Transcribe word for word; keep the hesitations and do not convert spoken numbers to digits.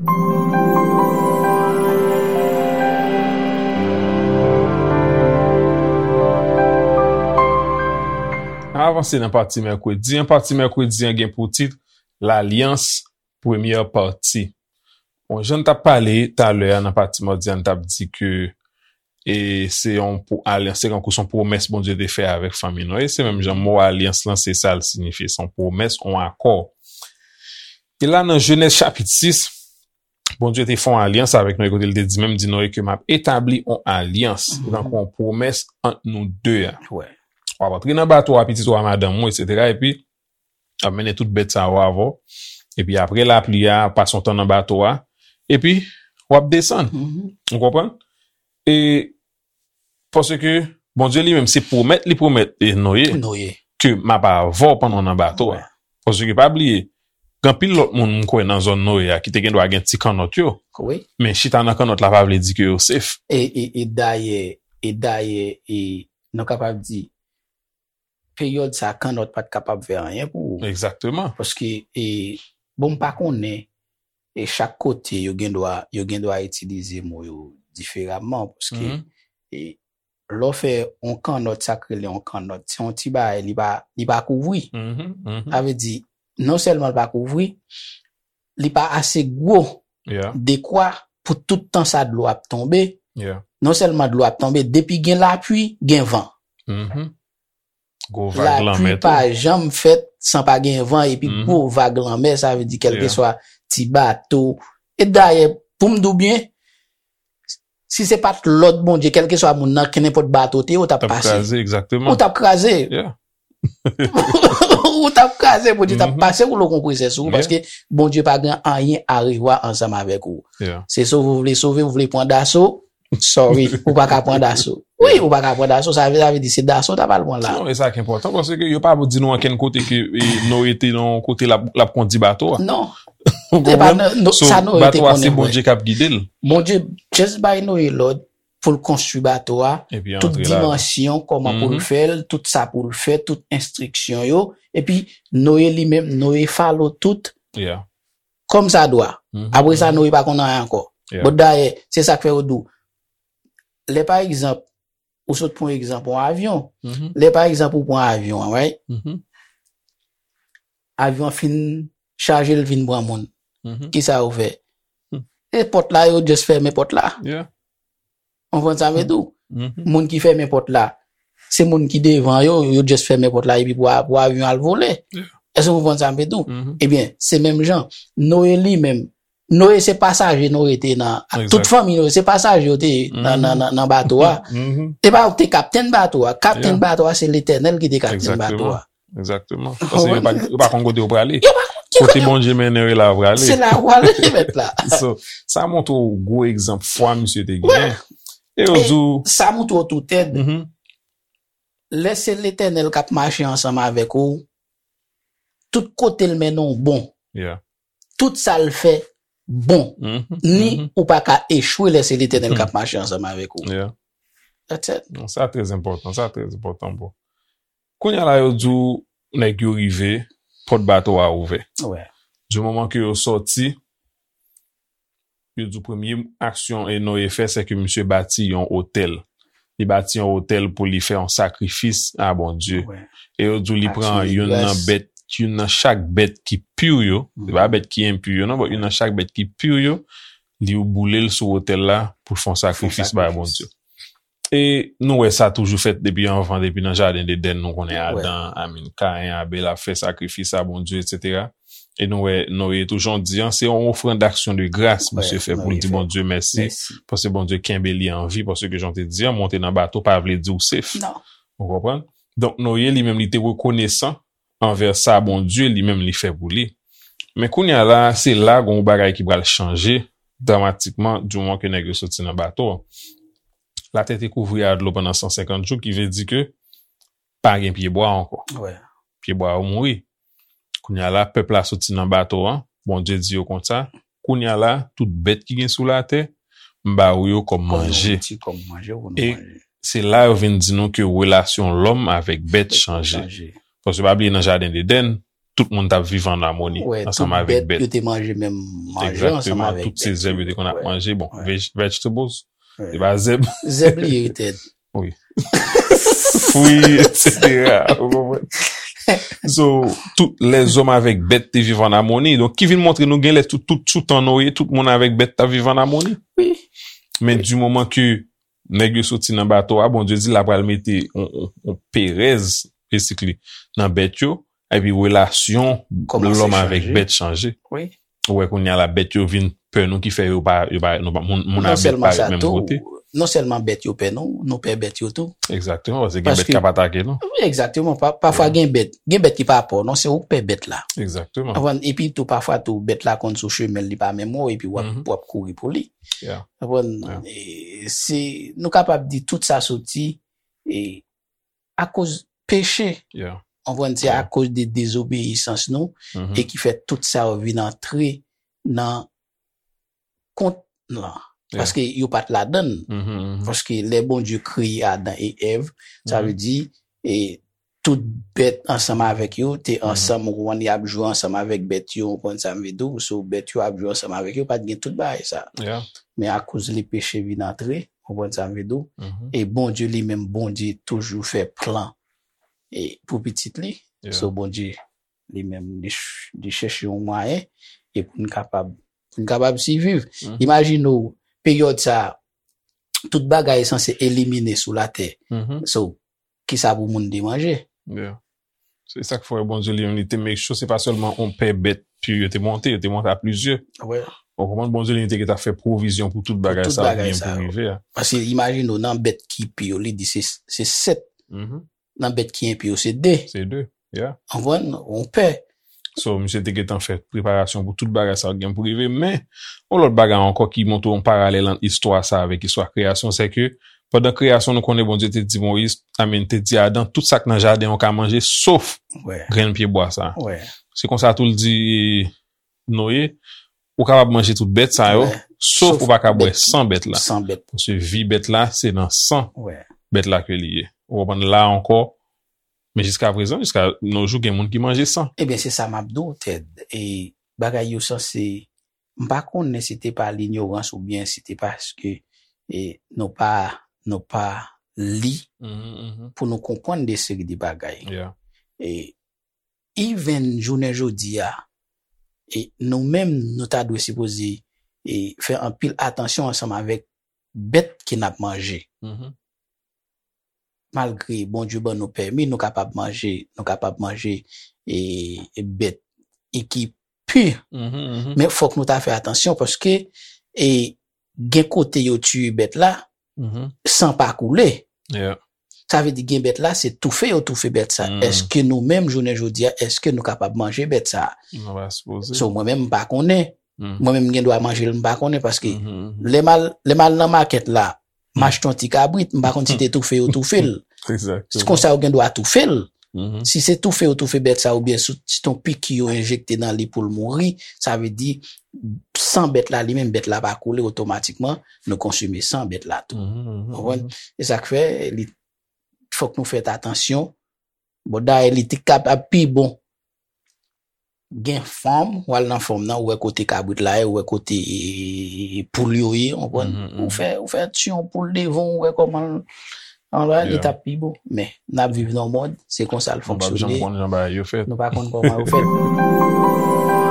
N avanse nan pati mèkredi an. Pati mèkredi an gen pou tit Lalyans, premyè pati. Bon, jan n t ap pale talè a nan pati madi a, n t ap di ke e se yon pou alyans, se kankou se yon pwomès Bondye te fè avèk fanmi Noye. Se menm jan mo alyans lan, se sa l siyifye, se yon pwomès, yon akò. E la, nan Jenèz chapit sis, Bondye te fè yon alyans avèk Noye, kote l te di, menm di Noye ke m ap etabli yon alyans, tankou yon pwomès ant nou de a. W ap antre nan bato a, pitit ou a, madanm ou, etsetera. Epi, w ap mennen tout bèt sa yo avè w. Epi apre lapli a, pase yon tan nan bato a. Epi, w ap desann. Ou konprann? E paske Bondye li menm se pwomèt li pwomèt e Noye Noye. Ke m ap avè w pandan w nan bato a. Paske pa bliye, gen anpil lòt moun m kwè nan zòn Noye a ki te gen dwa gen ti kannòt yo. Wi. Men chita nan kannòt la pa vle di ke yo safe. E, e, e dayè, e dayè, e nou kapab di, peryòd sa, kannòt pa t kapab fè anyen pou ou. Egzakteman. Paske, e, bon, m pa konnen, e chak kote, yo gen dwa, yo gen dwa itilize mo yo diferaman, paske, e, lè w fè yon kannòt, sa k rele yon kannòt, se yon ti bagay, li pa, li pa kouvri. Sa vle di, non sèlman li pa kouvri, li pa ase gwo, dekwa pou tout tan sa dlo ap tonbe. Non sèlman dlo ap tonbe, depi gen lapli, gen van. Gwo vag lanmè tou. Lapli pa janm fèt san pa gen van, epi gwo vag lanmè, sa vle di kèlkeswa ti bato. E dayè, pou m di w byen, si se pa t lòd Bondye, kèlkeswa moun nan, kenenpòt bato te ye, ou t ap pase. T ap kraze, egzakteman. Ou t ap kraze. Ou t ap kraze, Bondye t ap pase woulo konpresè sou ou, paske Bondye pa gen anyen a revwa ansanm avèk ou. Se sove ou vle sove, ou vle pran daso, sorry, ou pa ka pran daso. Wi, ou pa ka pran daso, sa vle, sa vle di se daso w t ap al pran la. Non, e sa ki enpòtan, paske yo pa di nou ankenn kote ke, e, Noye te nan yon kote l ap, l ap kondi bato a. Non. Ou konprann? So, bato a se Bondye k ap gide l. Bondye just bay Noye lòd pou l konstwi bato a, tout dimansyon, kòman pou l fè l, tout sa pou l fè, tout enstriksyon yo. Epi, Noye li menm, Noye follow tout kòm sa dwa. Apre sa, Noye pa konn anyen ankò. Bon, dayè, se sa k fè yo di w, lè pa egzanp, ou sot pran egzanp yon avyon. Lè pa egzanp, ou pran avyon an, right? Avyon an fin chaje, l vin pran moun. Kisa yo fè? E pòt la, yo just fèmen pòt la. Ou konprann sa m vle di w? Moun ki fèmen pòt la, se moun ki devan yo, yo just fèmen pòt la epi pou, pou avyon al vole. Èske w konprann sa m vle di w? Ebyen, se menm jan. Noye li menm, Noye se pasaje Noye te nan, ak tout fanmi Noye, se pasaje yo te ye nan, nan, nan, nan bato a. E pa yo ki te kaptenn bato a. Kaptenn bato a, se Letènèl ki te kaptenn bato a. Egzakteman. Paske yo pa, yo pa konn kote yo prale. Yo pa konn ki kote. Kote Bondye mennen yo la yo prale. Se la yo prale, mèt la. So, sa montre w gwo egzanp fwa misye te genyen. E yo di w, sa montre w tou tèt. Lè se Letènèl k ap mache ansanm avèk ou, tout kote l mennen w bon. Tout sa l fè bon. Ni ou pa ka echwe lè se Letènèl k ap mache ansanm avèk ou. That's it. Non, sa trè enpòtan, sa trè enpòtan, bro. Kounye a la, yo di w, nèg yo rive, pòt bato a ouvè. Di moman ke yo sòti, yo di w premye aksyon e Noye fè, se ke misye bati yon otèl. Li bati yon otèl pou li fè yon sakrifis a Bondye. E yo di w li pran youn nan bèt, youn nan chak bèt ki pi yo, se pa bèt ki enpi yo non, but youn nan chak bèt ki pi yo, li boule l sou otèl la pou l fè yon sakrifis bay Bondye. E nou wè sa toujou fèt depi anvan, depi nan jaden Edenn, nou konnen Adan, I mean, Kayen, Abèl ap fè sakrifis a Bondye, etsetera. E nou wè Noye tou, jan w di an, se yon ofrann d'aksyon de gras misye fè pou l di Bondye mèsi, paske Bondye kenbe li an vi, paske jan w te di an, monte nan bato pa vle di w safe. Ou konprann? Donk, Noye li menm li te rekonesan anvè sa Bondye li menm li fè pou li. Men kounye a la, se la gon bagay ki pral chanje dramatikman di moman ke nèg yo soti nan bato an. Latè te kouvri a dlo pandan san senkant jou, ki vle di ke pa gen pyebwa ankò. Pyebwa yo mouri. Kounye a la, pèp la soti nan bato an, Bondye di yo konsa, kounye a la, tout bèt ki gen sou latè, m ba ou yo kòm manje. E se la yo vin di nou ke relasyon lòm avèk bèt chanje. Paske pa bliye nan jaden Edenn, tout moun t ap viv an amoni ansanm avèk bèt. Yo te manje menm manje ansanm avèk bèt. Tout se zèb yo te konn ap manje. Bon, vegetables, se pa zèb. Zèb li ye, Ted. Wi. Fwi, etsetera. Ou konprann? So, tout lèzòm avèk bèt te viv an amoni. Donk, ki vin montre nou genlè tout, tout sou tan Noye, tout moun avèk bèt t ap viv an amoni. Wi. Men di moman ke nèg yo soti nan bato a, Bondye di l apral mete yon, yon, yon perèz, basically, nan bèt yo, epi relasyon lòm avèk bèt chanje. Ou wè kounye a la, bèt yo vin pè nou, ki fè yo pa, yo pa, nou pa, moun, moun ak bèt pa ret menm kote. Non sèlman bèt yo pè nou, nou pè bèt yo tou. Egzakteman, paske gen bèt k ap atake nou. Wi, egzakteman. Pafwa gen bèt, gen bèt ki pa pè w, non, se ou k pè bèt la. Egzakteman. Epi tou, pafwa tou, bèt la konn sou chemen l, li pa menm wè w, epi w ap, w ap kouri pou li. Konprann? E, se, nou kapab di tout sa soti, e, akoz peche. Konprann? Se akoz de dezobeyisans nou, e ki fè tout sa yo vin antre nan kont lan. Paske yo pa t ladann. Paske lè Bondye kreye Adan e Èv, sa vle di, e, tout bèt ansanm avèk yo te ansanm, ou konprann, y ap jwe ansanm avèk bèt yo, ou konprann sa m vle di w, so bèt yo ap jwe ansanm avèk yo, pa t gen tout bagay sa. Men akoz li peche vin antre, ou konprann sa m vle di w, e Bondye li menm, Bondye toujou fè plan e pou pitit li. So Bondye li menm, li, ch- li chèche yon mwayen e pou n kapab, pou n kapab siviv. Imajine w, peryòd sa, tout bagay sanse elimine sou latè. So, kisa pou moun te manje? Se sa k fè Bondye li menm, li te make sure se pa sèlman yon pè bèt, pi yo te monte, yo te monte a plizyè. Ou konprann, Bondye li menm te gentan fè pwovizyon pou tout bagay sa yo ki gen pou rive a. Paske imajine w, nan bèt ki pi yo, li di se, se sèt. Nan bèt ki enpi yo, se de. Se de, yeah. Konprann? Yon pè. So, misye te gentan fè preparasyon pou tout bagay sa yo ki gen pou rive. Men, yon lòt bagay ankò ki montre yon paralèl ant istwa sa avèk istwa kreyasyon, se ke pandan kreyasyon, nou konnen Bondye te di Moyiz, I mean, te di Adan, tout sa k nan jaden an w ka manje, sof grenn pyebwa sa. Se konsa tou l di Noye, ou kapab manje tout bèt sa yo, sof ou pa ka bwè san bèt la. Paske vi bèt la, se nan san bèt la ke li ye. Ou konprann la ankò, men jiska prezan, jiska nos jours, gen moun ki manje san. Ebyen, se sa m ap di w, Ted. E bagay yo sanse, m pa konnen si te pa linyorans oubyen si te paske, e, nou pa, nou pa li pou nou konprann de seri de bagay. E even jounen jodi a, e nou menm, nou ta dwe sipoze, e, fè anpil atansyon ansanm avèk bèt ke n ap manje. Malgre Bondye ban nou pèmi, nou kapab manje, nou kapab manje, e, e bèt e ki pi. Men fòk nou ta fè atansyon paske, e, gen kote yo tiye bèt la, san pa koule. Sa vle di gen bèt la, se toufe yo toufe bèt sa. Èske nou menm, jounen jodi a, èske nou kapab manje bèt sa? So, mwen menm, m pa konnen. Mwen menm, m gen dwa manje l, m pa konnen, paske lè m al, lè m al nan makèt la, m achte yon ti kabrit, m pa konn si te toufe yo toufe l. Se konsa yo gen dwa toufe l. Si se toufe yo toufe bèt sa, oubyen si se yon piki yo enjekte nan li pou l mouri, sa vle di, san bèt la, li menm, bèt la pa koule, otomatikman, nou konsime san bèt la tou. Ou konprann? E sa k fè, li, fòk nou fè atansyon. Bon, dayè, li te kapab pi bon. Gen fèm, w al nan fèm nan, ou wè kote kabrit la ye, ou wè kote, e, e, e, poul yo ye, ou konprann? Ou fè, ou fè tiye yon poul devan, ou wè kòman l, anlè, li t ap pi bon. Men, n ap viv nan yon mond, se konsa l fonksyone. Nou pa janm konn jan bagay yo fèt. Nou pa konn kòman yo fèt.